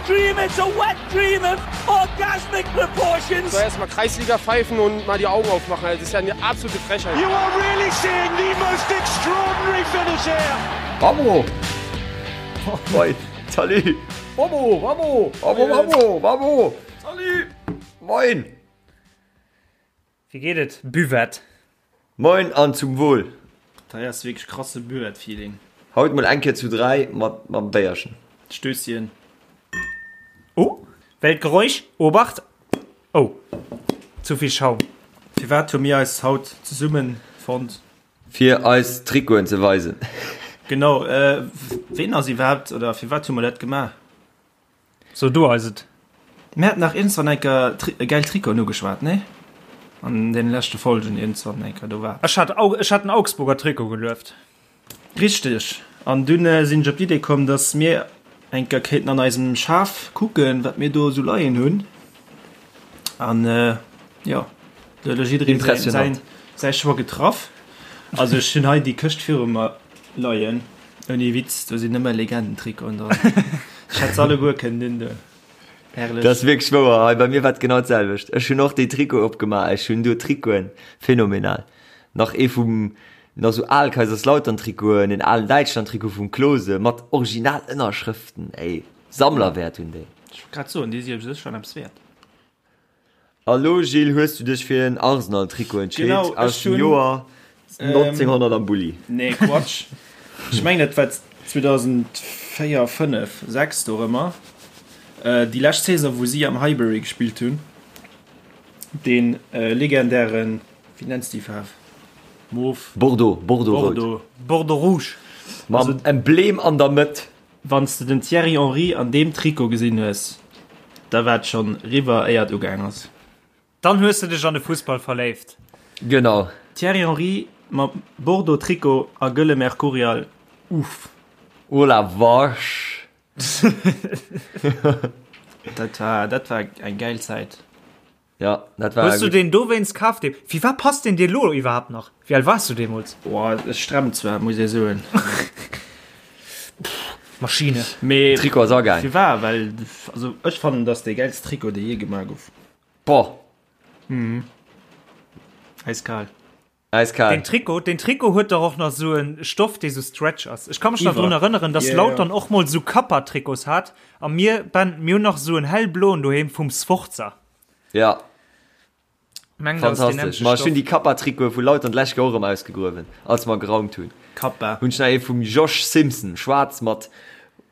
dream, it's a wet dream of orgasmic proportions. So erstmal Kreisliga pfeifen und mal die Augen aufmachen. Das ist ja eine absolute Frechheit. You are really seeing the most extraordinary finish here. Vamos! Moin, salut! Vamos, vamos! Vamos, vamos, vamos! Salut! Moin! Wéi geet et, Buvette? Moin an zum Wohl! Dat hei ass wierklech krasse Buvette-Feeling. Haut mol eng Kéier zu 3 mat mam Béierchen. Stösschen. Oh, Weltgeräusch, Obacht! Oh, zu vill Schaum. Firwat hu mir eis haut zesummen fonnt? Fir eis Trikoten ze weisen. Genau, ween ass iwwerhaapt, oder firwat hu mer dat gemaach? So du eis et. Mir haten nach iergendzwann enker geil Trikoten ugeschwat, nee? An den leschte Folgen iergendzwann enker, do war. Ech hat ech hat den Augsburger Trikot gelueft. Richteg. An dunn sinn ech op d'Idee komm, dass mir enker kéinten an eisem Schaf kucken, wat mir do esou leien hunn. An jo, do huet elo jidderee säin säi Choix getraff. Also ech hunn hei déi Këscht viru mer leien. Ouni Witz, do sinn nëmme Legendentrikoten dran. Ech hätt se alleguer kënnen undoen. Herrlech. Dat ass wierklech wouer. Hei bei mir war et genau d'selwecht. Ech hunn och déi Trikote opgemaach. Ech hunn do Trikoten, phänomenal. Nach ee vum, nach sou al Kaiserslautern-Trikoten, en alen Däitschland-Trikot vum Klose mat original Ënnerschrëften. Ey, Sammlerwäert hunn déi. Ech wollt grad soen, déi si u sech schonn eppes wäert. A lo Gilles, hues du dech fir en Arsenal Trikot entscheet Genau, ech aus dem hunn, Joer 1900 am Bulli? Nee, Quatsch. Ech mengen et war 2004, 5, 6 dorëmmer, déi lescht Saison wou si am Highbury gespillt hunn, dee legendären, wéi nenns déi Faarf? Mauve? Bordeaux, Bordeaux-Rout. Bordeaux. Bordeaux Rouge. Mam Emblem an der Mëtt. Wann s de den Thierry Henry an deem Trikot gesinn hues, da war et schonn riwwer éier et ugaang ass. Dann hues de dech an de Fussball verléift. Genau. Thierry Henry mam Bordeaux Trikot a gëlle Mercurial, uff. Oh la vache. Dat war, dat war eng gäil Zäit. Ja, dat war Hues du deen dowéinst kaf? Dee, firwat passt deen dir lo iwwerhaapt nach? Wéi al waars du deemools? Boah, ech stremmt zwar, muss ee soen. Maschine. Mee Trikot ass agaang. Firwat? Well, also ech fannen, dass dee gäilst Trikot, dee jee gemaach gouf. Boah. Eiskal. Eiskal. Den Trikot, den Trikot huet dach och nach sou en Stoff, dee sou stretch ass. Ech ka mech nach drun erënneren, dass Lautern och mol sou Kappa-Trikots hat a mir, Ben, mir hunn nach sou en hellbloen doheem vum Sforza. Ja. Mengen, dat ass deen Fantastesch. nämmlechte Ma ech hunn Stoff. déi Kappa-Trikote vu Lautern d'lescht Joer och erëm ausgegruewen, als mer geraumt hunn. Kappa. Hunn ech nach ee vum Josh Simpson, schwaarz mat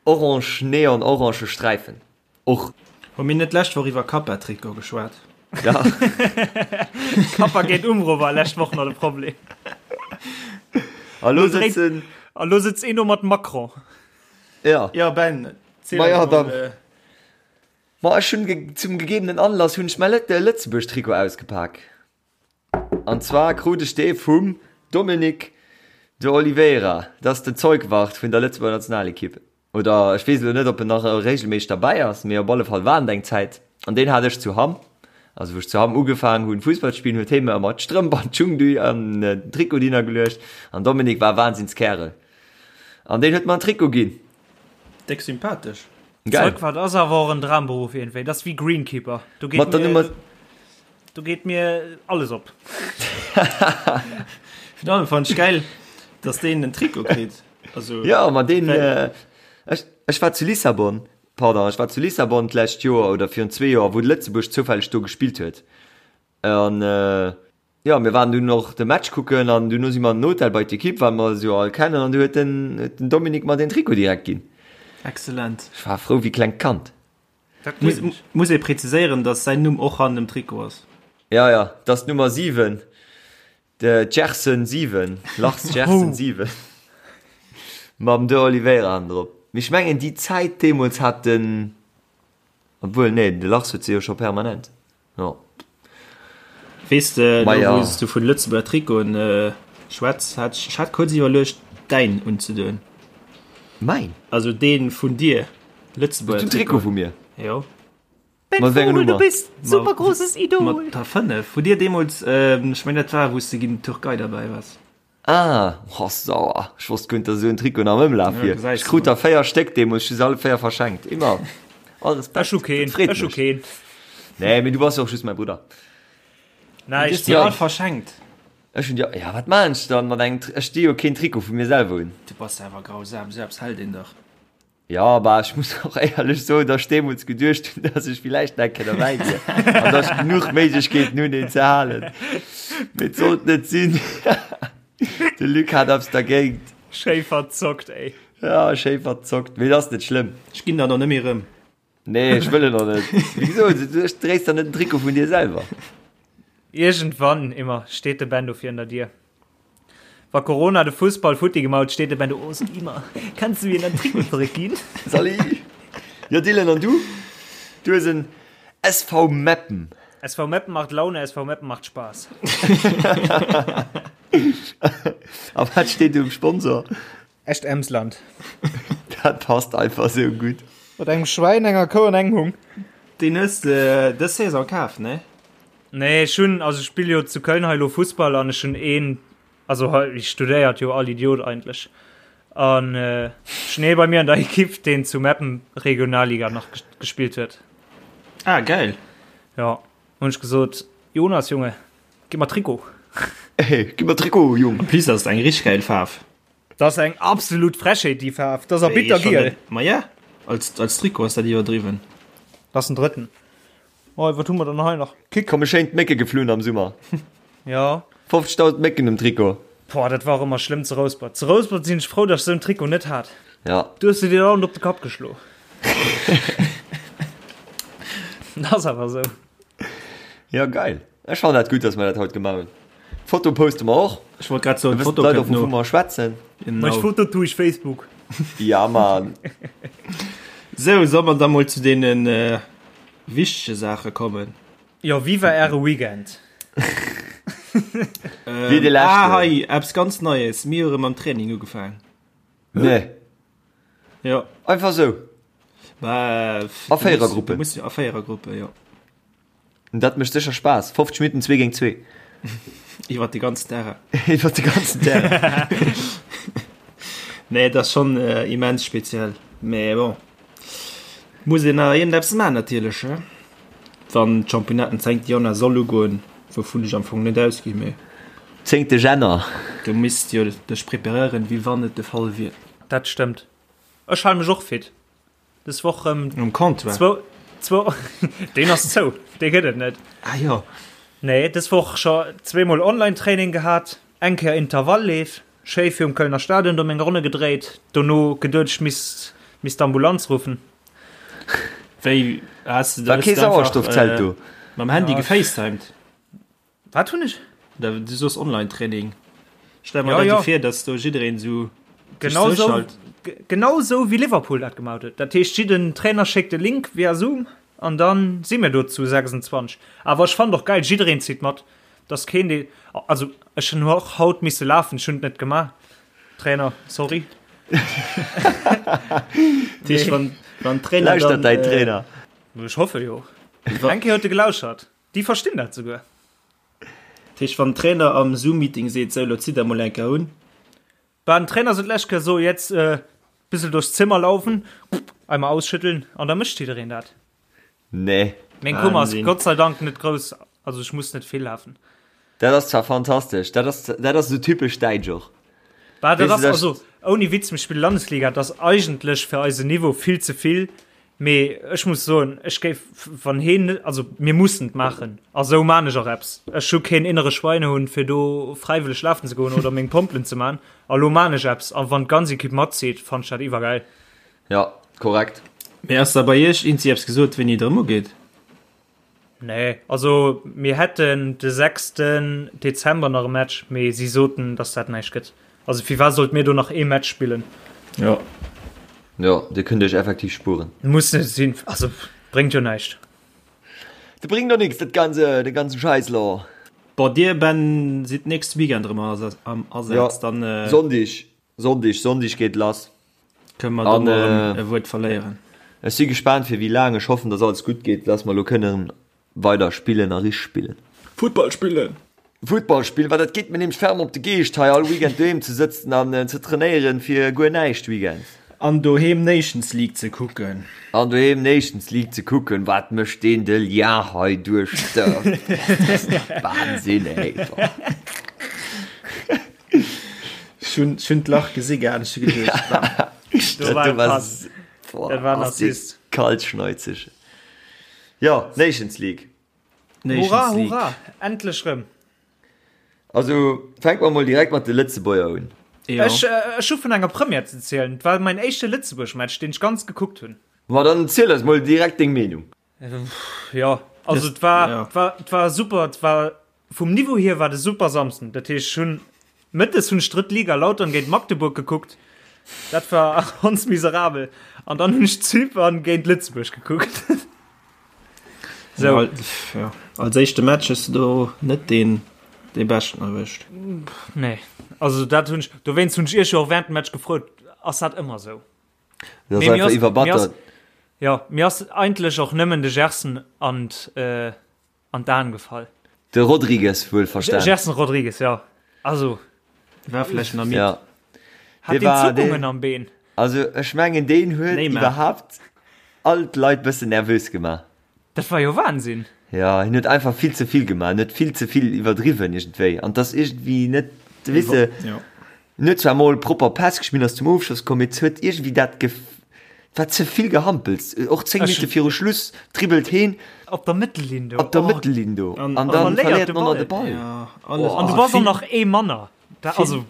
orange, neon-orange Sträifen. Och. Hu mir net d'lescht Woch iwwer Kappa-Trikot geschwat? Ja. Kappa géint Umbro war lescht Woch nach de Problem. A lo sëtzen. A lo sëtzt een do mat Macron. Ja. Ja, Ben, ziel Ma ja, eis mol. dann. Ma ech hunn zum gegebenen Anlass hunn ech mäi Lëtzebuerg-Trikot ausgepak. An zwar krut ech dee vum Dominique de Oliveira, dat ass den Zeugwart vun der Lëtzebuerger Nationalekipp. Oder ech weess elo net, ob en nach regelméisseg derbäi ass, mee op alle Fall war en et eng Zäit. An deen hat ech zu Hamm. Also wou ech zu Hamm ugefaangen hunn Fussball ze spillen, huet hie mir ëmmer d'Strëmp an d'Schung an den Trikot hinner geluecht. An Dominique war e Wahnsinnskerel. An deen huet mer en Trikot ginn. Déck sympathesch. Geil. Zeugwart ass awer och en Dramberuff iergendwéi. Dat ass wéi Greenkeeper. Do geet Mat der mir, Nummer. do geet mir alles op. Virun allem fannen ech gäil, dass deen en Trikot kritt. Also, Ja, ma deen, ech, ech war zu Lissabon, pardon, ech war zu Lissabon d'lescht Joer oder virun zwee Joer, wou Lëtzebuerg zoufälleg do gespillt huet. An jo, mir waren dunn och de Match kucken an duerno si mer an den Hotel bei d'Ekipp, well mer se jo all kennen, an du huet den, huet den Dominique mer den Trikot direkt ginn. Excellent. Ech war frou wéi klengt Kand. Dat Muss, gleef ech. muss ee präziséieren, dass säin Numm och hannen dem Trikot ass. Ja, ja, dat ass d'Nummer 7. De Gerson 7, Lars Gerson 7 mam De Oliveira hannendrop. Mee ech mengen déi Zäit deemools hat den, obwuel nee, de Lars huet se jo scho permanent, jo. Weess de, elo Maja. wou s du vun Lëtzebuerger Trikoten schwätz, hat ech, ech hat kuerz iwwerluecht däin unzedoen. Mäin? Also dee vun dir, Lëtzebuerger Den Trikot Trikot. vu mir? Jo. Ben Mat wéi enger Vogel, du Nummer? bist super großes Idol. Mat der 5. Hutt dir deemools, ech mengen dat war wou s de géint d'Türkei derbäi waars. Ah, oh sauer, ech wosst guer net dass esou en Trikot nach am Ëmlaf Ja, wier. gesäis Ech de krut mol. der 4 Stéck deemools, ech hu se alle 4 verschenkt. Immer. All Respekt. Ech hu keen, Dat freet ech hu mech. keen. Nee, mee du bass jo och just mäi Brudder. Näischt. Du hues déi all verschenkt. Ech hunn déi, ja wat maan ech dann mat engem, ech di jo keen Trikot vu mir selwer un. Du bass awer grausam, sou eppes hält een dach. Jo, bah ech muss och éierlech soen, dass ech deemools geduecht hunn, dass ech villäicht nach eng Kéier derbäi wier an dass ech genuch Méiglechkeeten hunn een ze halen. Mee et sollt net sinn. De Luc hat eppes dergéint. Schéi verzockt, ey. Ja, schéi verzockt, mee et ass net schlëmm. Ech ginn der och net méi erëm. Nee, ech wëll en och net. Wéi gesot, du dréis der net den Trikot vun dir selwer. Iergendwann immer steet de Ben do virun der Dier. Wa Corona de Fussball futti gemaut, steet de Ben do, Oh, sag immer, kannst du mir dein Trikot zréckginn? Salut! Jo Dylan, an du? Du hues en SV Meppen. SV Meppen macht Laune, SV Meppen macht Spaß. A wat steet do um Sponsor? Echt Emsland. Dat passt einfach sou gutt. Mat engem Schwäin, enger Kou an engem Hung. Deen hues de dës Saison kaf, ne? Nee, ech hunn, also ech spille jo zu Köln hei elo Fussball an ech hunn een, also hei studéiert jo all Idiot eigentlech an ech hunn ee bei mir an der Ekipp, deen zu Meppen Regionalliga nach gespillt huet. Ah, geil. Jo, hunn ech gesot, Jonas, Junge, gi mer Trikot. Hey, gi mer Trikot, Jung. En plus ass et eng richteg geil Faarf. Dat ass eng absolut Frechheet, déi Faarf. Dat ass a bittergiel. Ma ja, als, als Trikot ass dat iwwerdriwwen. Dat ass den drëtten. Oh, wat hu mer dann hei nach? Kick. Komme schéin d'Mécke geflunn am Summer. Ja. 50.000 Mécken um Trikot. Boah, dat war och ëmmer schlëmm zu Rouspert. Zu Rouspert sinn ech frou, datt ech esou en Trikot net hat. Ja. Du hues de dir dauernd op de Kapp geschlo. Dat ass awer esou. Ja, geil. Ech fannen dat gutt, dass mer dat haut gemaach hunn. D'Foto poste mer och. Ech wollt grad soen, Da wëssen d'Foto d'Leit kënnt och, wovun no. mer schwätzen. Mech Genau. Foto tu ich Facebook. Ja, Mann. Sou, soll mer da mol zu deene wichtege Saache kommen? Jo, wéi war äre Weekend? Wéi de leschten. Ah, hei, eppes ganz Neies, Mir hu rëm mam Training ugefaang. Nee. Jo. Einfach sou? Bah, A Véierergruppen? Du muss, a Véierergruppen, jo. Dat mécht sécher Spaass. 50 Minutten zwee géint zwee. Iwwer de ganzen Terrain. Iwwer de ganzen Terrain. Nee, dat ass schonn immens speziell. Mee bon, muss een nach iergendeppes maachen natierlech, he? Wann d'Championnat den 10. Januar soll ugoen, wouvun ech am Fong net ausginn, mee. Zéngte Jänner. Du misst jo dech preparéieren, wéi wann et de Fall wier. Dat stëmmt. Ech hale mech och fit. Des Woch rëm Um Comptoir? zwou, zwou, deen ass zou, dee gëtt et net. Ah jo. Nee, des Woch scho zweemol Online-Training gehat, eng Kéier Intervallleef, schéi virum Kölner Stadion do meng Ronne gedréit, dono geduet ech misst misst d'Ambulanz ruffen. Wéi, has de War kee hues de einfach, Sauerstoffzelt do? Mam Handy Ja. gefacetimed? Wat hunn ech? Da, du soos Online-Training. Stell mer Ja, dat ja. esou vir, dass do jiddereen esou sech Genau sou, zouschalt. genau sou wéi Liverpool dat gemaach huet. Dat heescht, jidden Trainer schéckt e Link via Zoom an dann si mir do zu 26. Awer ech fannen och geil, jiddereen zitt mat. Dass keen dee, also ech hunn och haut misse lafen, ech hunn et net gemaach. Trainer, sorry. Dat heescht, wann, wann Trainer Lauschtert dann, däin äh, Trainer. Ech hoffe jo. Eng Kéier huet e gelauschert. Déi verstinn dat souguer. Dat heescht, wann den Trainer am Zoom-Meeting seet, sou, lo zitt der mol eng Kéier un. Bah, den Trainer sot d'lescht Kéier so, jetzt äh, bissel durchs Zimmer laufen, einmal ausschütteln an da mécht jiddereen dat. Nee. Meng Kummer ass Wahnsinn. Gott sei Dank net grouss, also ech muss net vill lafen. Dat ass zwar fantastesch, dat ass, dat ass esou typesch däitsch och. Bah, dat Weess du, ass dat- also ouni Witz, mir spille Landesliga, dat ass eigentlech fir eisen Niveau vill ze vill, Mee ech muss soen, ech géif, wann heen net, also mir mussen et maachen, a sou maan ech och eppes. Ech hu keen innere Schweinehund fir do fräiwëlleg lafen ze goen oder meng Pompelen ze maan. A lo maan ech eppes, a wann d'ganz Equipe matzitt, fannen ech dat iwwergäil. Ja, korrekt. Mee ass da bei iech eenzi eppes gesot, wéini et erëm ugeet? Nee, also mir hätten de 6. Dezember nach e Match, mee si soten, dass dat näischt gëtt. Also firwat sollt mir do nach ee Match spillen? Jo. Jo, dir kënnt iech effektiv spueren. Muss net sinn, also bréngt jo näischt. Dat bréngt doch nix, dat ganze, de ganzen Schäiss lo. Bon, dir Ben sidd nächste Weekend erëm am Asaz, Jo, dann. Sonndeg, Sonndeg, Sonndeg geet lass. Kënne mer do mol erëm e Wuert verléieren. Ech si gespaant fir wéi laang. Ech hoffen, dass alles gutt geet, dass mer elo kënnen weider spillen a richteg spillen. Futtball spillen! Futtball spillen, well dat geet mir nämlech ferm op de Geescht hei all Weekend doheem ze sëtzen an ze trainéieren fir guer näischt weekends. An doheem Nations League ze kucken. An doheem Nations League ze kucken. Wat mécht deen de Lien hei duerch d'Dörf? Wahnsinn, ey. Ech hunn, ech hunn d'Lach gesi gehat, ech hu geduecht, bam. Do war e Pass. Boah, Dat war en ass dee Assist. kaltschneuzeg. Jo, Nations League. Nations Hurra, League. hurra, endlech rëm. Also fänke mer mol direkt mat de Lëtzebuerger un. Jo. Ech, ech hu vun enger Première ze zielen. Et war mäin éischte Lëtzebuerg-Match, deen ech ganz gekuckt hunn. Ma dann ziel eis mol direkt deng Meenung. Jo, also et war, ja. et war, et war super, et war vum Niveau hier war de super Samsden. Dat heescht, ech hunn mëttes hunn ech drëtt Liga Lautern géint Magdeburg gekuckt. Dat war ganz miserabel. An dann hunn ech Zypern géint Lëtzebuerg gekuckt. So. Ja, ja. Als éischte Match hues du do net deen dee beschten erwëscht. Nee, also dat hunn ech, dowéinst hunn ech iech jo och während dem Match gefrot, ass dat ëmmer sou? Dat ass Mee mir einfach ass, mir ass, iwwerbattert. ja, mir ass eigentlech och nëmmen de Gerson an d', an d'Aen gefall. De Rodrigues wuel verstan. Gerson Rodrigues, ja. Also. War vläicht nach midd. Ja. Hat deen Zuckungen am Been? Also ech mengen deen huet Neymar. iwwerhaapt all d'Leit bëssen nervös gemaach. Dat war jo Wahnsinn. Ja, hien huet einfach vill ze vill gemaach, en huet vill ze vill iwwerdriwwen iergendwéi an 't ass iergendwéi net, weess de, Ja. en huet zwar mol propper Päss gespillt, ass zum Ofschloss komm, mee et huet iergendwéi dat Gef, et war ze vill Gehampels, och 10 Ech. Minutte viru Schluss dribbelt heen Op der Mëttellinn do, op der oh. Mëttellinn do An- an an dann verléiert verléiert de en och nach de Ball. Ball. Ja, alles, Oh. An du also bass och vill, nach ee manner. Da, vill, also.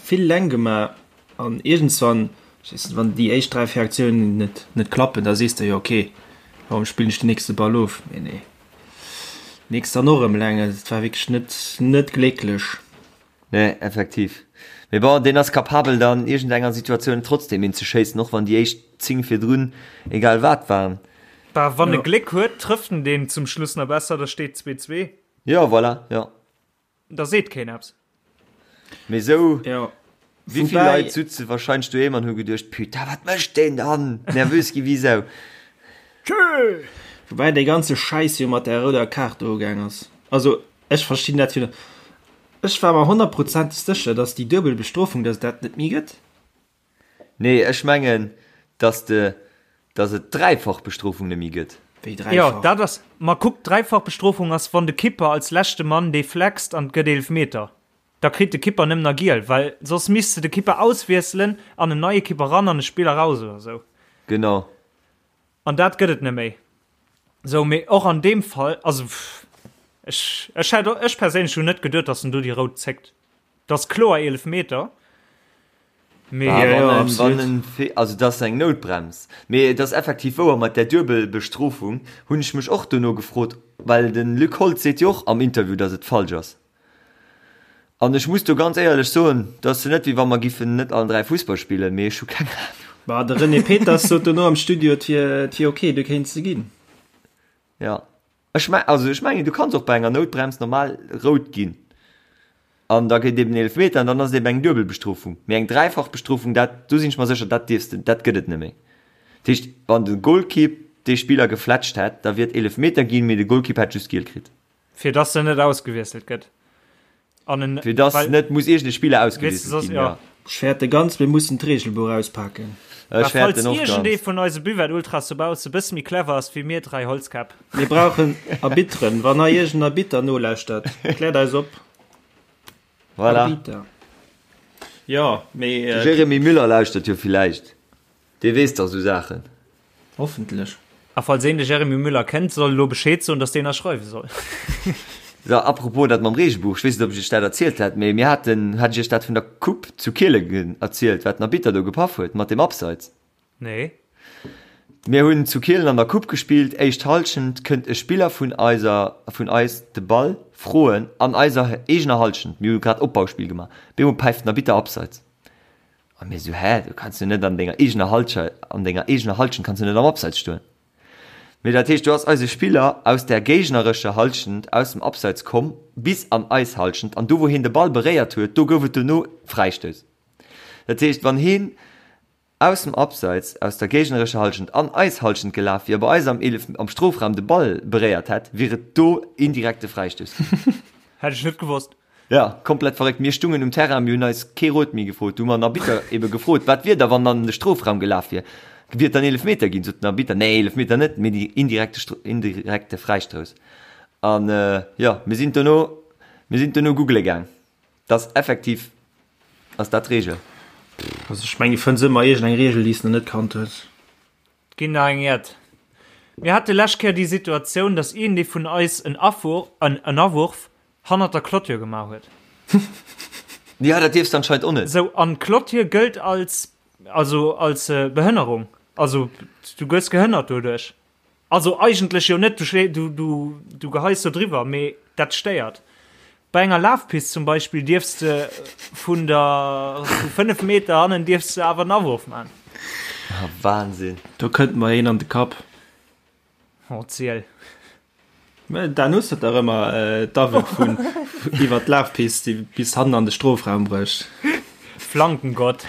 vill Länng gemaach an iergendswann, ech weess net, wann déi éischt 3, 4 Aktiounen net, net klappen, da sees de jo, okay, warum spillen ech den nächste Ball of? Mee nee, nächst dann och erëm Länng. Also et war wierklech net, net glécklech. Nee, effektiv. Mee bon, deen ass capabel dann iergend enger Situatioun trotzdem een ze schéissen, och wann déi éischt 10 virdrun egal wat waren. Bah, wann e Ja. Gléck huet, trëfft en deen zum Schluss nach besser, da steet 2, 2. Jo, voilà, jo. Da seet keen eppes. Mee sou, Ja. wéi vill Woubäi- Leit sutze wahrscheinlech doheem an hu geduecht, Putain, wat mécht deen dann? Nervös gi wéi Sau. Tschö! Woubäi dee ganze Schäiss jo mat där rouder Kaart do ugaang ass. Also ech verstinn dat jo net. Ech war mer honnertprozenteg sécher, dass déi duebel Bestrofung, dass et dat net méi gëtt. Nee, ech mengen, dass de, dass et d'dräifach Bestrofung net méi gëtt. Wéi Jo, dräifach? dat ass, ma kuck, d'dräifach Bestrofung ass, wann de Kipper als leschte Mann dee flext an et gëtt Eelefmeter. Da kritt de Kipper nëmmen nach giel, well soss misst de de Kipper auswiesselen an en neie Kipper ran an e Spiller raus oder sou. Genau. An dat gëtt et net méi. Sou, mee och an deem Fall, also ech, ech hätt, ech perséinlech hunn net geduet, datt en do déi rout zéckt. Dat ass kloer Eelefmeter, mee. Ah, Ja, ja, wann en, absolut. wann en, Fe- also dat ass eng Noutbrems. Mee et ass effektiv wouer, mat där Duebelbestrofung hunn ech mech och dono gefrot, well de Luc Holtz seet jo och am Interview, datt et falsch ass. An ech muss do ganz éierlech soen, dat ass jo net wéi wa mer giffen net allen 3 Fussball spillen, mee ech hu keng Ahnung. Bah, de René Peters sot dono am Studio, et wier, et wier ok, du kéints se ginn. Ja, ech me also ech mengen, du kanns och bei enger Noutbrems normal rout ginn an da gëtt eben Eelefmeter an dann ass et eben eng Duebelbestrofung. Mee eng Dräifachbestrofung, dat, do sinn ech mer sécher, dat dierfs de, dat gëtt et net méi. Dat heescht, wann de Golkipp dee Spiller gefletscht hätt, da wier et Eelefmeter ginn, mee de Golkipp hätt just giel kritt. Fir dass en net ausgewiesselt gëtt. An en, Fir dass well, net muss iergend e Spiller weess de, ausgewiesselt soss, ginn, ja. ja. Ech fäerte ganz, mir mussen d'Reegelbuch auspaken. Ech Mä fäerten falls och iergendee ganz. vun eise Buvette-Ultras dobausse bësse méi clever ass wéi mir 3 Holzkäpp. Mir brauchen Arbitteren. Wann hei iergend en Arbitter nolauschtert, kläert eis op. Voilà. Arbitter. Jo, mee. De Jérémy Müller lauschtert jo villäicht. Dee weess dach sou Saachen. Hoffentlech. A falls een de Jeremy Müller kennt, soll elo Bescheed soen, dass deen ënnerschreiwe soll. So, apropos dat mam Reegelbuch, ech weess net, ob ech iech dat erzielt hat, mee mir haten, hat ech iech dat vun der Coupe zu Kielen erzielt, wat den Arbitter do gepaff huet mat dem Abseits? Nee. Mir hunn zu Kielen an der Coupe gespillt, éischt Halschent, kënnt e Spiller vun eiser, vun eis de Ball froen an eiser eegener Halschent, mir hu grad Opbauspill gemaach, bemol päift den Arbitter Abseits. A mir sou, hä, du kanns jo net an denger eegener Halsche, an denger eegener Halschent kanns du net am Abseits stoen. Mee dat heescht, do ass eise Spiller aus der géignerescher Halschent aus dem Abseits komm bis an eis Halschent an do wou hien de Ball beréiert huet, do gouf et dono Fräistouss. Dat heescht, wann hien aus dem Abseits, aus der géignerescher Halschent an eis Halschent gelaf wier, bei eis am Eelef, am Strofraum de Ball beréiert hätt, wier et do indirekte Fräistouss ginn. Hätt ech net gewosst. Ja, komplett verréckt. Mir stungen um Terrain, mir hunn eis kee Rot méi gefrot. Du hu mer den Arbitter ebe gefrot, wat wier da, wann an de Strofraum gelaf wier? Wier et dann Eelefmeter ginn? Sot den Arbitter, nee, Eelefmeter net, mee déi indirekte, indirekte Fräistouss. An jo, mir sinn dono, mir sinn dono googele gaang. Dass effektiv ass dat d'Reegel. Also ech mengen, du fënns ëmmer iergend eng Reegel, déi s de nach net kannt hues. Ginn nach eng Jett. Mir hate lescht Kéier déi Situatioun, dass iergendee vun eis en en Awurf hannert der Clôture gemaach huet. Jo, dat dierfs de anscheinend och net. Sou, an d'Clôture gëllt als, also als Behënnerung. Also du gëss gehënnert doduerch. Also eigentlech jo net, du, du, du geheis do driwwer, mee dat stéiert. Bei enger Lafpist zum Beispill dierfs de vun der vu 5 Meter hannen dierfs de awer en Awurf man. Ah, Wahnsinn. Do kënnt mer een an de Kapp. Oh, ziel. Mä Dan hues dat dach ëmmer, d'Awërf vun iwwer d'Lafpist, déi bis hannen an de Strofraum brécht. Flankengott.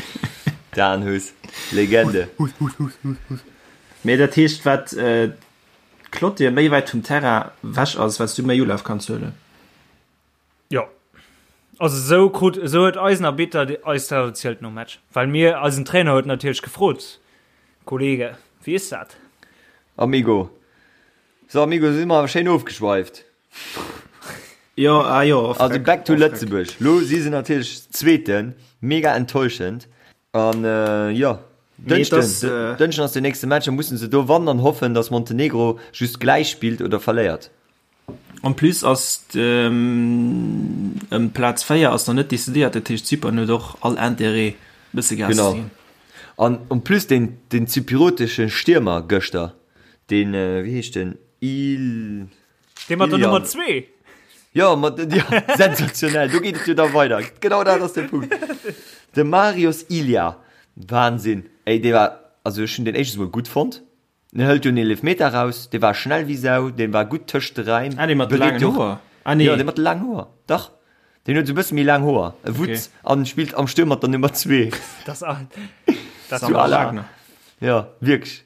Dan Huss, Legende. Mee dat heescht, wat d'Clôture méi wäit vum Terrain wech ass, wat s du méi Ulaf kanns huelen. Jo. Also esou krut, esou huet eisen Arbitter eis dat erzielt nom Match. Well mir, eisen Trainer huet natierlech gefrot, Kollege, wéi is dat? Amigo. So Amigo, si mer awer schéin ofgeschweift. Jo, ah jo, off Also back to Lëtzebuerg. Lo si se natierlech Zweeten, mega enttäuschend. An jo, Dënschden, Dënschden ass den nächste Match, da mussen se do wannen an hoffen, datt Montenegro just gläich spillt oder verléiert. En plus ass ëm d'Plaz 4 ass nach net decidéiert, dat heescht Zypern huet och all Interêt e bësse Gas ze ginn. Genau. An en plus deen, deen zypriotesche Stiermer gëschter, deen, wéi heescht den, Il. Dee mat der Nummer 2? Jo, mat, jo, sensationell, do geet et jo da weider. Genau dat ass de Punkt. De Marios Ilia, Wahnsinn, ey, dee war, also ech hunn deen éischtens mol gutt fonnt. En hëlt jo en Eelefmeter raus, dee war schnell wéi Sau, dee war gutt tëscht de Räim. Ah, dee mat de laangen Hoer? Ah, nee. Jo, dee mat de laangen Hoer, dach. Deen huet esou e bësse méi laang Hoer, e Wutz, an spillt am Stuerm mat der Nummer 2. Das ass dat Wagner. Jo, wierklech.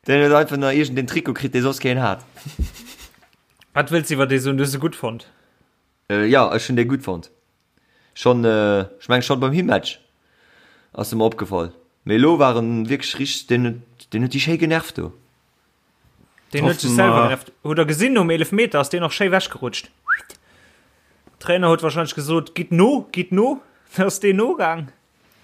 Deen huet einfach nach iergendeen Trikot kritt, dee soss keen hat. Wat wëlls iwwer dee soen? Du hues e gutt fonnt? Jo, ech hunn dee gutt fonnt. Schon, ech mengen schon beim Himmatch ass e mer opgefall, mee elo war en wierklech richteg, deen huet, deen huet déi schéi genervt do. Deen huet sech selwer genervt. Hutt der gesinn, nom Eelefmeter ass deen och schéi wechgerutscht. Trainer huet wahrscheinlech gesot, gitt no, gitt no, da ass deen nogaang.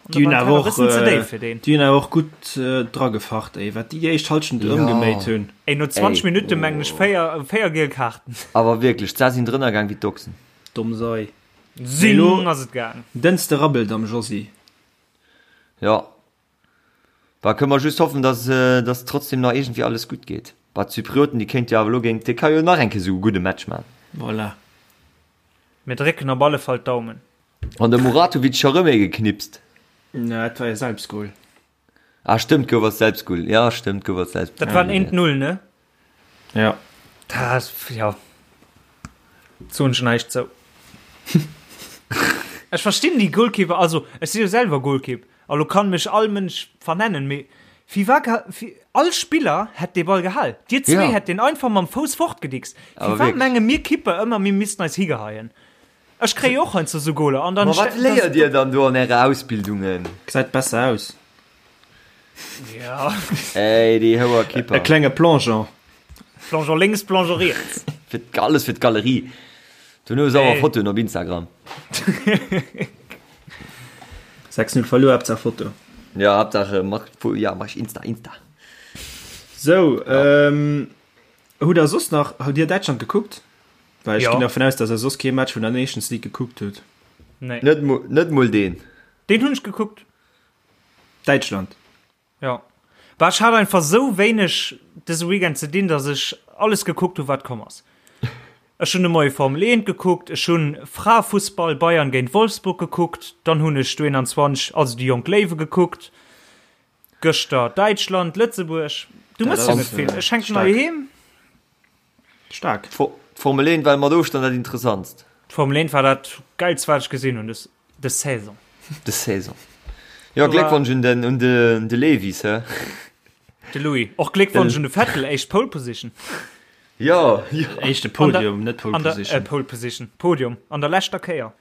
Déi hunn awer och, déi hunn awer och gutt dragefacht, ey, wat déi déi éischt Halschent ëmgeméit hunn. Ey, no 20 Minutte mengen ech 4, 4 giel Kaarten. Awer wierklech, d'Sa sinn drënner gaang wéi d'Ochsen. Domm Sei. Sinn ass et gaang. Dënste rabbelt am Josy. Jo. Bah, kënne mer just hoffen, dass, dass trotzdem nach iergendwéi alles gutt geet. Bah, d'Zyprioten, déi kéinte jo awer elo géint d'Tierkei jo nach eng Kéier esou e gudde Match man. Voilà. Mir drécken op alle Fall d'Daumen. An de Muratovic scho rëm ee geknipst. Na, dat war e Selbstgol. Ah, stëmmt, gouf als Selbstgol. Ja, stëmmt, gouf als Selbstgol. Dat war en 1-0, ne? Ja. Dat, ja. Soen ech näischt zou. Ech verstinn déi Goalkeeper, also ech si jo selwer Goalkeep, a lo kann mech all Mënsch vernennen, mee firwat, all Spiller hätt dee Ball gehal. Dir zwee hätt deen einfach mam Fouss fortgedickst. Firwat menge mir Kipper ëmmer, mir missten eis higeheien? Ech kréie och heiansdo sou Goler an dann. Ma wat léiert dir dann do an äre Ausbildungen? Gesäit besser aus. Ja. Ey, déi houer Kipper. E klenge Plongeon. Plongeon lénks, Plongeon riets. Fir alles fir d'Galerie. Dono sauer Fotoen op Instagram. 6-0 verluer, Haaptsaach Foto. Ja, Haaptsaach mach, ja, mach Insta, Insta. Sou, ähm, hutt der soss nach, hutt dir Däitschland gekuckt? Well ech ginn dervun aus, dass der soss kee Match vun der Nations League gekuckt hutt. Nee. Net, net mol deen. Deen hunn ech gekuckt. Däitschland. Ja. Bah, ech hat einfach sou wéineg dëse Weekend ze dinn, dass ech alles gekuckt hu wat komm ass. Ech hunn de Moie Formel 1 gekuckt, ech hunn Fraefussball Bayern géint Wolfsburg gekuckt, dann hunn ech d'U21, also déi jonk Léiwe gekuckt, gëschter Däitschland, Lëtzebuerg. Du mëss jo net vill. Ech hänken hei heem. Staark. D'Formel 1 war mat Ofstand dat interessantst. D'Formel 1 war dat geilst wat ech gesinn hunn des des Saison. Des Saison. Jo Gléckwonsch un den un de de Lewis he. De Louis. Och Gléckwonsch un de Vettel, éischt Pole Position. Jo, jo. Éischte Podium, net Pole Position. Äh, Pole Position, Podium an der leschter Kéier.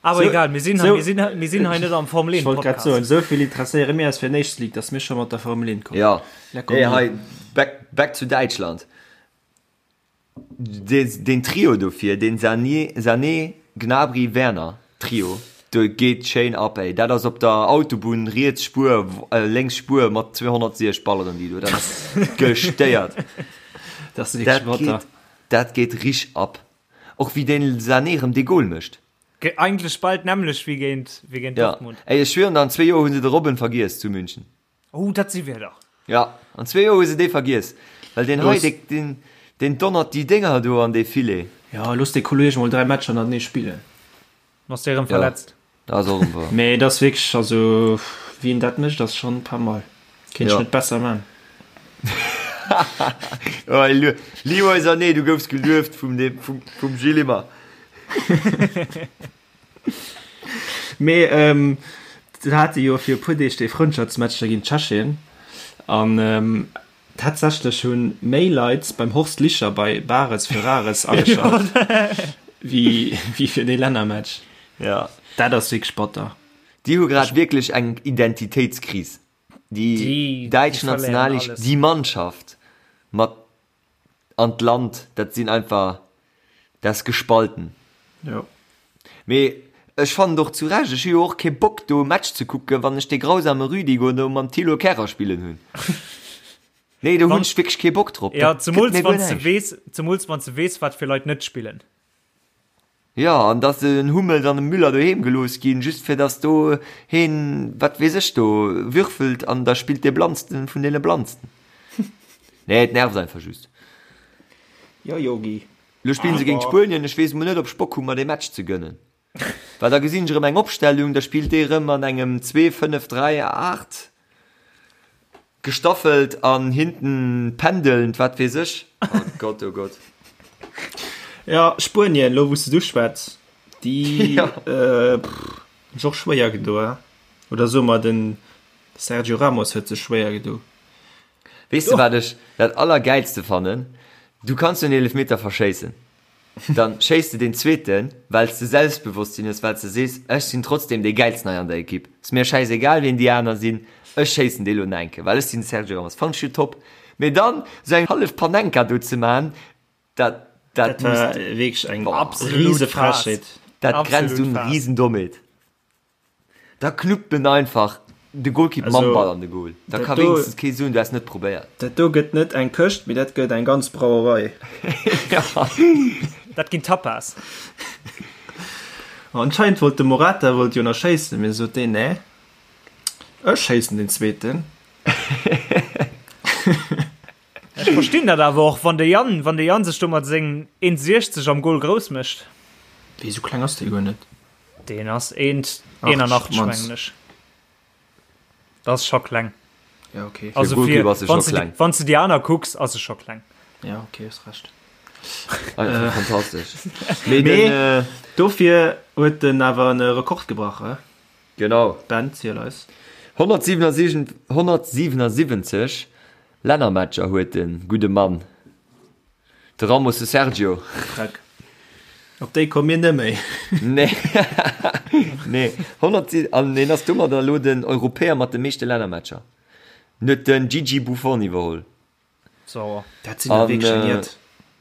Awer so, egal, mir sinn, so, mir sinn, mir sinn hei net am Formel 1 Podcast. Ech wollt grad soen, esou vill interesséiere mir eis fir nächst League, dass mir scho mat der Formel 1 kommen. Ja. Hey, hei, back, back zu Däitschland. Den, den Trio dofir, den Sané, Sané, Gnabry, Werner Trio, do geet schéin ab, ey. Dat ass op der Autobunn riets Spuer, äh, lénks Spuer mat 260 balleren déi do. Dat ass gestéiert. Dat ass wierklech batter. Dat geet rich ab. Och wéi den Sané rëm dee Goal mécht. Eigentlech bal d'nämmlecht wéi géint, wéi géint Ja. Dortmund. Ey, ech schwieren der, an zwee Joer hu se de Robben vergiess zu München. Oh, dat si Wierder. Ja, an zwee Joer hu se dee vergiess. Well deen hei, Looss. dee, deen, deen donnert déi Dénger do an dee Filet. Ja, looss dee Kolleg mol 3 Matcher hannertenee spillen. Ass dee rëm Ja, verletzt? dat ass och erëm wahr. Mee et ass wierklech, also wéi en dat mécht, ass schonn pas mal. Kéint ech Ja. net besser man. Oh, Leroy Sané, du goufs gelueft vum, dem, vum, vum Gilles Immer. Mee ähm, se hate jo fir e puer Deeg dee Frëndschaftsmatch da géint Tschechien an ähm, tatsächlech hu méi Leit beim Horst Licher bei Bares für Rares ageschalt wéi, wéi fir dee Lännermatch. Ja. Dat ass wierklech batter. Déi hu grad wierklech eng Identitéitskris. Déi däitsch Nationalequipe, déi Mannschaft mat an d'Land, dat sinn einfach, dat ass gespalten. Jo. Mee ech fannen et och zu Recht, ech hu jo och kee Bock do e Match ze kucken, wann ech dee grausame Rüdiger do mam Thilo Kehrer spillen hunn. Nee, do hunn ech wierklech kee Bock drop. Ja, zemools wann s de weess, zemools wann s de weess, wat fir Leit net spillen. Jo, an dass en Hummels an e Müller doheem gelooss ginn, just fir dass do heen, wat weess ech, do würfelt an da spillt dee Blannsten vun deene Blannsten. Nee, et nervt einfach just. Jo, Yogi. Lo spillen se géint Spuenien, ech weess mol net, ob ech Bock hu mer dee Match ze gënnen. Well da gesinn ech erëm eng Opstellung, da spillt dee erëm an engem 2, 5, 3, 8. Gestaffelt an hinten pendelnd, wat weess ech. Oh Gott, oh Gott. Ja, Spuenien, lo wou s de duschwätz, déi hunn sech och schwéier gedo, he? Oder soe mer, den Sergio Ramos huet sech schwéier gedo. Weess de, wat ech dat Allergäilste fannen? Du kanns jo en Eelefmeter verschéissen. Dann schéiss de deen zweeten, wells de Selbstbewosstsinn hues, wells de sees, ech sinn trotzdem dee gäilsten hei an der Ekipp, ass mir schäisegal wien déi aner sinn, ech schéissen dee lo nach eng Kéier, well ech sinn de Sergio Ramos. Fannen ech jo top. Mee dann sou eng hallef Panenka do ze maan, dat, dat Dat war muss, wierklech eng boah, riese Frechheet. dat grenzt un Riesendommheet. Da knuppt en einfach de Golkipp mam Ball an de Goal. Da ka wéinstens kee soen, du häss net probéiert. Dat do gëtt net eng Këscht, mee dat gëtt eng ganz Brauerei. Dat ginn Tapas. Anscheinend wollt de Morata wollt jo nach schéissen, mee sot deen, nee, ech schéissen den zweeten. Ech verstinn dat awer och, wann de Yann, wann de Yann sech do mat sengem 1,60 am Goal grouss mécht. Wéi, esou kleng ass dee guer net. Deen ass 1,81 mengen ech. Dat ass scho kleng. Ja, okay. Also fir, wann s de, wann s de déi aner kucks, ass e scho kleng. Ja, okay, hues Recht. Äh, fantastesch. Mee den, äh, dofir huet den awer en Rekord gebrach, he? Genau. Ben, ziel eis. 177, 177 Lännermatcher huet de gudde Mann. De Ramos, de Sergio. Dreck. Op déi komme mir net méi. Nee. Nee. 100, an hien ass domadder elo den Europäer mat de meeschte Lännermatcher. En huet den Gigi Buffon iwwerholl. Sauer. Dat sinn der wierklech eng Jett.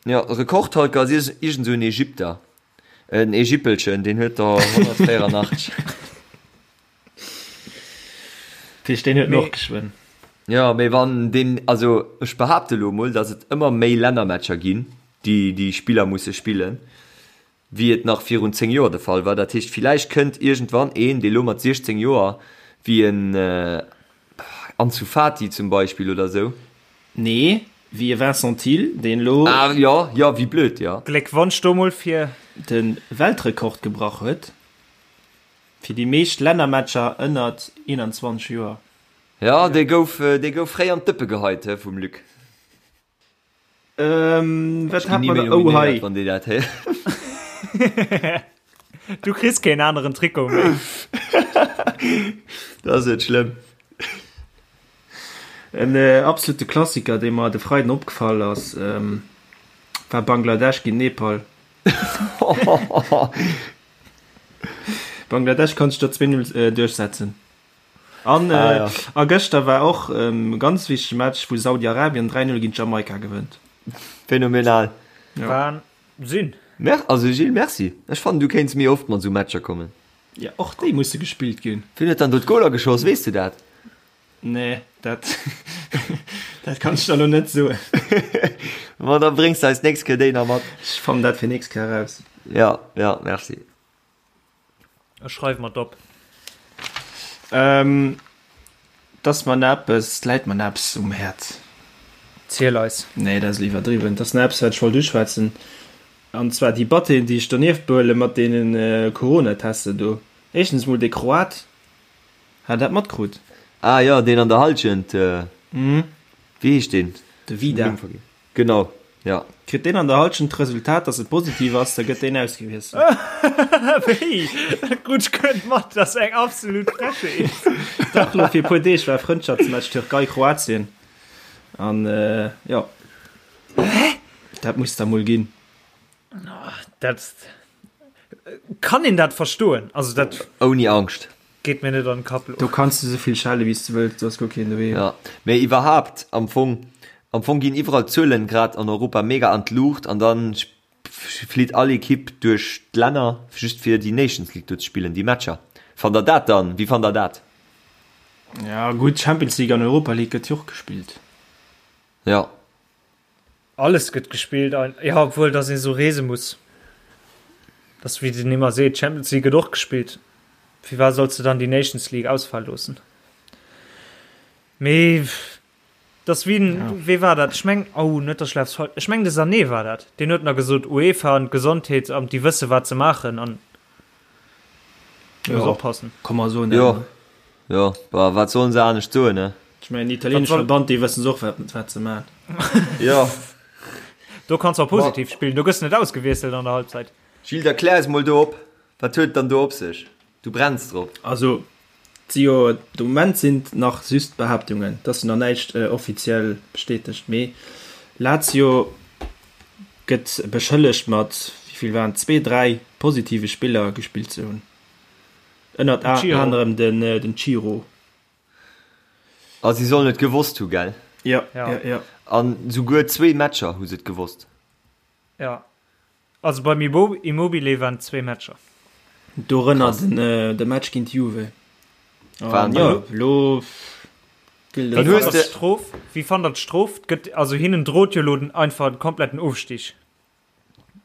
Jo, Rekordhalter ass iergend esou en Ägypter. En Ägyppelchen, deen huet der 184. Tisch, deen huet och geschwënn. Jo, mee wann deen, also ech behaapte lo mol, datt et ëmmer méi Lännermatcher ginn, déi déi Spiller musse spillen, wéi et nach virun 10 Joer de Fall war. Dat heescht, villäicht kënnt iergendwann een, dee lo mat 16 Joer, wéi en Ansu Fati zum Beispill oder sou. Nee, wéi e Vincent Thill, deen lo. Ah jo, jo, wéi blöd, jo. Gléckwonsch do mol fir. De Weltrekord gebrach huet. Fir déi meescht Lännermatcher ënnert 21 Joer. Jo, dee gouf, dee gouf fréi an d'Dëppe geheit, he, vum Luc. Ähm, wat hat mer da? Oh, hei. Wann déi dat héieren. Du kriss keen aneren Trikot méi. Dat ass net schlëmm. En absolute Klassiker, dee mer de Freiden opgefall ass. War Bangladesch géint Nepal. Bangladesch konnt sech do 2-0 duerchsetzen. An ah, ja. a gëschter war och e ganz wichtege Match, wou Saudi-Arabien 3-0 géint Jamaika gewënnt. Phänomenal. Ja. Wahnsinn. Mer also Gilles, merci. Ech fannen, du kéints méi oft mat esou Matcher kommen. Ja, och déi musse gespillt ginn. Wien huet dann do d'Goler geschoss, weess du dat? Nee, dat, dat kann ech der lo net soen. Ma da bréngs de eis d'nächst Kéier déi nach mat. Ech fannen dat fir nächst Kéier eraus. Ja, ja, merci. Ech schreiwe mer et op. Ähm, 't ass mer nach eppes, 't läit mer nach eppes um Häerz. Ziel eis. Nee, dat ass elo iwwerdriwwen. 't ass nach eppes, wat ech wollt uschwätzen. An zwar déi Batteen, déi ech donieft behuelen, mat deene Corona-Tester do. Éischtens emol dee Kroat. Hat der dat matkrut? Ah jo, deen an der Halschent, wéi heescht deen? De Vida. Genau, jo. Kritt deen an der Halschent d'Resultat, dass et positiv ass, da gëtt deen ausgewiesselt. Wéi? Dat krut ech guer net mat, dat ass eng absolut Frechheet. Dach, lo fir e puer Deeg war Frëndschaftsmatch Türkei-Kroatien an jo. Dat muss da mol ginn. Dat kann een dat verstoen? Also dat Ouni Angscht. Geet mir net an den Kapp lo. Do kanns de souvill schelle wéi s de wëlls, do ass guer keen doheem. Ja, mee iwwerhaapt am Fong, am Fong ginn iwwerall d'Zuelen grad an Europa mega an d'Luucht an dann flitt all Equipe duerch d'Länner just fir déi Nations League do ze spillen, déi Matcher. Fannt der dat dann, wéi fannt der dat? Ja gutt, Champions League an Europa League gëtt jo och gespillt. Ja. Alles gëtt gespillt, jo, obwuel dass ee sou reese muss. Dass wéi den ëmmer seet, Champions League gëtt och gespillt. Firwat solls de dann déi Nations League ausfale loossen? Mee dass wéi den, ja. wee war dat? Ech meng, oh net dass ech laf falsch, ech meng de Sané war dat, deen huet nach gesot, UEFA an d'Gesondheetsamt, déi wësse wat se maachen an ja, muss oppassen. Kann man soen. Jo, jo, bah, wat sollen se anescht soen, ne? Ech mengen, den italieenesche Verband, déi wëssen och, wat, wat se maachen. Jo. Do kanns du och positiv spillen, do gëss net ausgewiesselt an der Halbzeit. Gilles, da klär eis mol do op, wat huet et dann do op sech? Du brenns drop. Also, et si jo, de Moment sinn et nach just Behaaptungen, et ass jo nach näischt offiziell bestätegt, mee Lazio gëtt beschëllegt mat, wéi vill waren et, zwee, dräi positive Spiller gespillt ze hunn, ënnert anerem den Ciro. A si sollen et gewosst hu, gell? Jo, jo, jo. An souguer zwee Matcher hu se et gewosst. Jo, also beim Immobile waren et zwee Matcher. Dorënner de Match géint Juve. An jo, elo gëllt et. Wéi fannt der d'Strof? Wéi fannt der d'Strof? Gëtt, also hinnen drot jo elo den einfach den kompletten Ofstig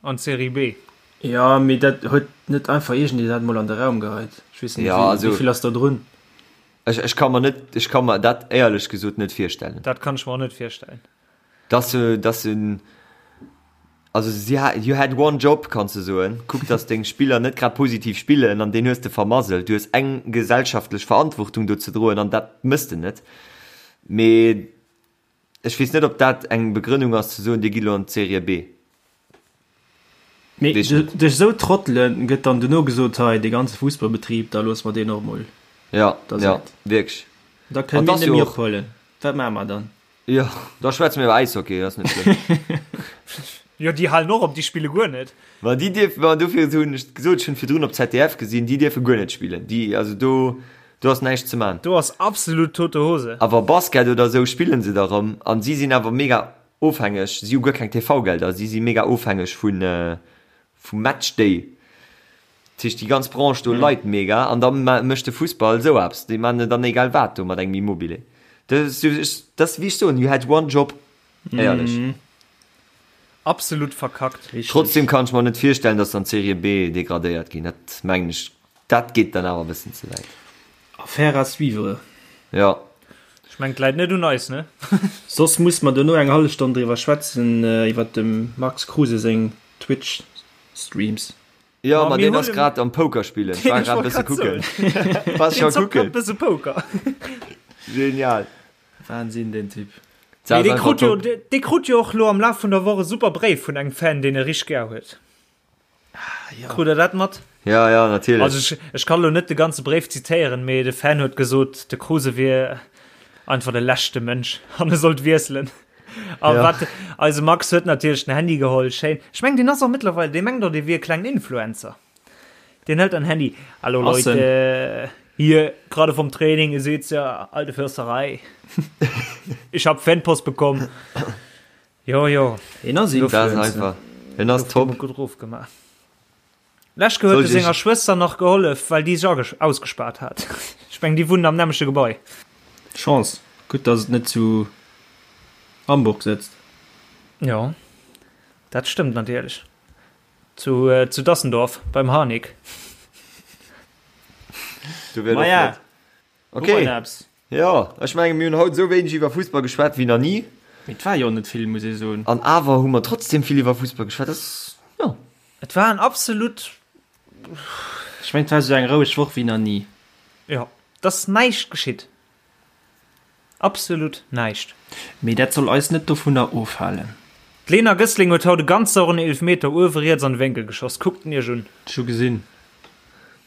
an d'Serie B. Jo, mee dat huet net einfach iergendee dat mol an de Raum geheit. Ech weess net, wéi vill ass da drun? Ech, ech ka mer net, ech ka mer dat éierlech gesot net virstellen. Dat kann ech mer och net virstellen. Dass se, dass se, also si ha, you had one job, kanns de soen, kuck dass deng Spiller net grad positiv spillen an deen hues de vermasselt. Du hues eng gesellschaftlech Verantwortung do ze droen an dat mëss de net. Mee ech weess net, ob dat eng Begrënnung ass ze soen, dir gitt elo an d'Serie B. Mee duerch esou Trottele gëtt dann dono gesot, hei dee ganze Fussballbetrib, da loosse mer deen och mol. Ja, ja, wierklech. Da kënne mir net méi ophuelen. Wat maache mer dann? Jo, da schwätze mir iwwer Äishockey, dat ass net schlëmm. Jo, déi halen och op, déi spille guer net. Ma déi dierfen, ma dofir hunn ech gesot, ech hunn virdrun op ZDF gesinn, déi dierfe guer net spillen. Déi, also do, do ass näischt ze man. Do ass absolut tote Hose. Awer Basket oder esou spillen se da rëm an si sinn awer mega ofhängeg, si hu guer keng TV-Gelder, si si mega ofhängeg vun, vum Matchday. Dat heescht déi ganz Branche do leit mega an da mécht de Fussball esou eppes. Déi maachen dann egal wat do mat engem Immobile. Dat ass wéi ech soen, you had one job. Éierlech. Absolut verkackt. Trotzdem kann ech mer net virstellen, datt se an d'Serie B degradéiert ginn. Dat mengen ech, dat geet dann awer e bëssen ze wäit. Affaire à suivre. Jo. Ech mengen, et läit net un eis, ne? Soss muss mer dono eng hallef Stonn driwwer schwätzen, iwwer dem Max Kruse seng Twitch-Streams. Jo, ma deen ass grad am Poker spillen. Ech war grad e bësse kucken. War scho kucken. Bësse Poker. Genial. Wahnsinn, deen Typ. Mee dee krut jo, dee krut jo och lo am Laf vun der Woch e super Bréif vun engem Fan, deen e richteg gär huet. Krut der dat mat? Ja, ja, natierlech. Also ech, ech kann lo net de ganze Bréif zitéieren, mee de Fan huet gesot, de Kruse wier einfach de leschte Mënsch an e sollt wiesselen. A ja. wat eise Max huet natierlech den Handy geholl schéin. Ech meng den ass och mittlerweile dee mengt och dee wier klengen Influencer. Den hëlt an Handy. Hallo Leute, äh, hier gerade vom Training, ihr seht's ja, alte Försterei. Ich hab Fanpost bekommen. Jo jo. Hien ass Influencer. Hien ass top. Gutt rof gemaach. Lech huet e senger Schwëster nach gehollef, well déi sech ausgespaart hat. Ech meng déi wunnen am nämmleche Gebai. Chance, gutt dass et net zu Hamburg sëtzt. Jo, dat stëmmt natierlech. Zu zu Dassendorf beim Harnik. Du wär Maja, net. Okay. Jo, ech menge mir hunn haut esou wéineg iwwer Fussball geschwat wéi nach ni. Mee et war jo net vill, muss ee soen. An awer hu mer trotzdem vill iwwer Fussball geschwat. Dat ass, jo. Et war en absolut. Ech mengen, et war esou eng roueg Woch wéi nach ni. Jo, et ass näischt geschitt. Absolut näischt. Mee dat soll eis net dovunner ofhalen. D'Lena Gössling huet haut e ganz sauren Eelefmeter uewe riets an de Wénkel geschoss. Kuckt en iech un. Ech hu gesinn.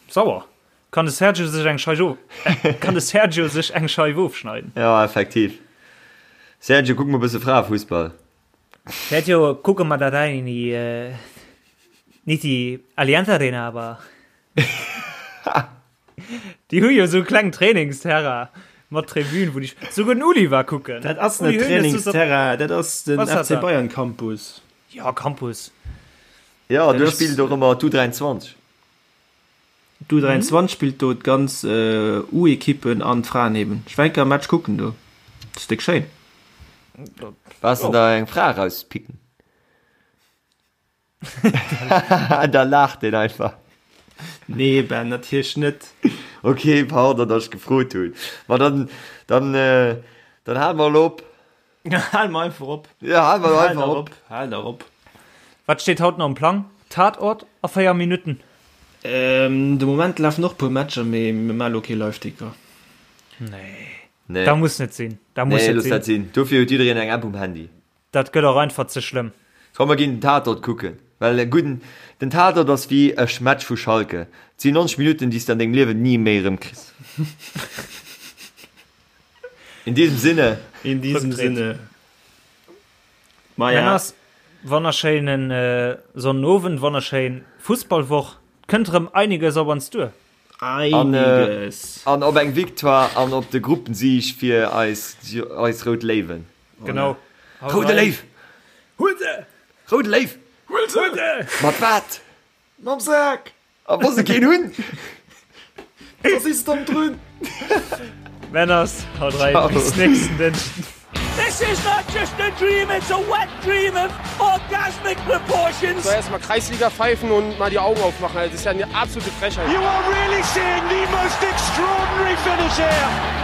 Sauer. Kann de Sergio sech eng Scheif of Kann de Sergio sech eng Scheif ofschneiden? Ja, effektiv. Sergio, kuck mol bësse Fraefussball. Sergio, kucke mer dat ein in die äh, nicht die Allianz Arena, aber Déi hu jo sou kleng Trainingsterrain mat Tribün, wou déi souguer den Uli war kucken. Dat ass net Trainingsterrain, dat ass den FC Bayern Campus. Ja, Campus. Ja, do spillt och ëmmer d'U23. D'U23 spillt do d'ganz U-Ekippen an d'Fraen eben. Ech war eng Kéier e Match kucken do. Dat ass déck schéin. Waars de der eng Fra erauspicken? Da laacht deen einfach. Nee Ben, natierlech net. Ok, pardon, datt ech gefrot hunn. Ma dann, dann, dann hale mer elo op. Hale mer einfach op. Ja, hale mer einfach op. Hal der op. Wat steet haut nach um Plang? Tatort a 4 Minutten. De Moment lafen och puer Matcher, mee mir maache lo kee Liveticker. Nee. Nee. Dat muss net sinn. Dat muss Nee, net looss sinn. dat sinn. Dofir huet jiddereen eng App um Handy. Dat gëtt och einfach ze schlëmm. Komm mer ginn den Tatort kucken, well e gudden, den Tatort ass wéi e Match vu Schalke, et sinn 90 Minutten déi s de an dengem Liewen ni méi erëm kriss. In diesem Sinne. In diesem Sinne. Maja. Männers, wonnerschéinen Sonnenowend, wonnerschéin Fussballwoch. Kënnt erëm einiges op ons duer. Einiges. An op eng Victoire an op de Gruppensieg fir eis, eis rout Léiwen. Genau. Roude Léiw! Huel se! Roude Léiw! Huel se! Mat wat? Mam Sak! A wa se keen hunn? Da si se domm drun! Männers, haut rein, bis nächsten Dënschden. This is not just a dream, it's a wet dream of orgasmic proportions. So erstmal Kreisliga pfeifen und mal die Augen aufmachen. Das ist ja eine absolute Frechheit. You are really seeing the most extraordinary finish here.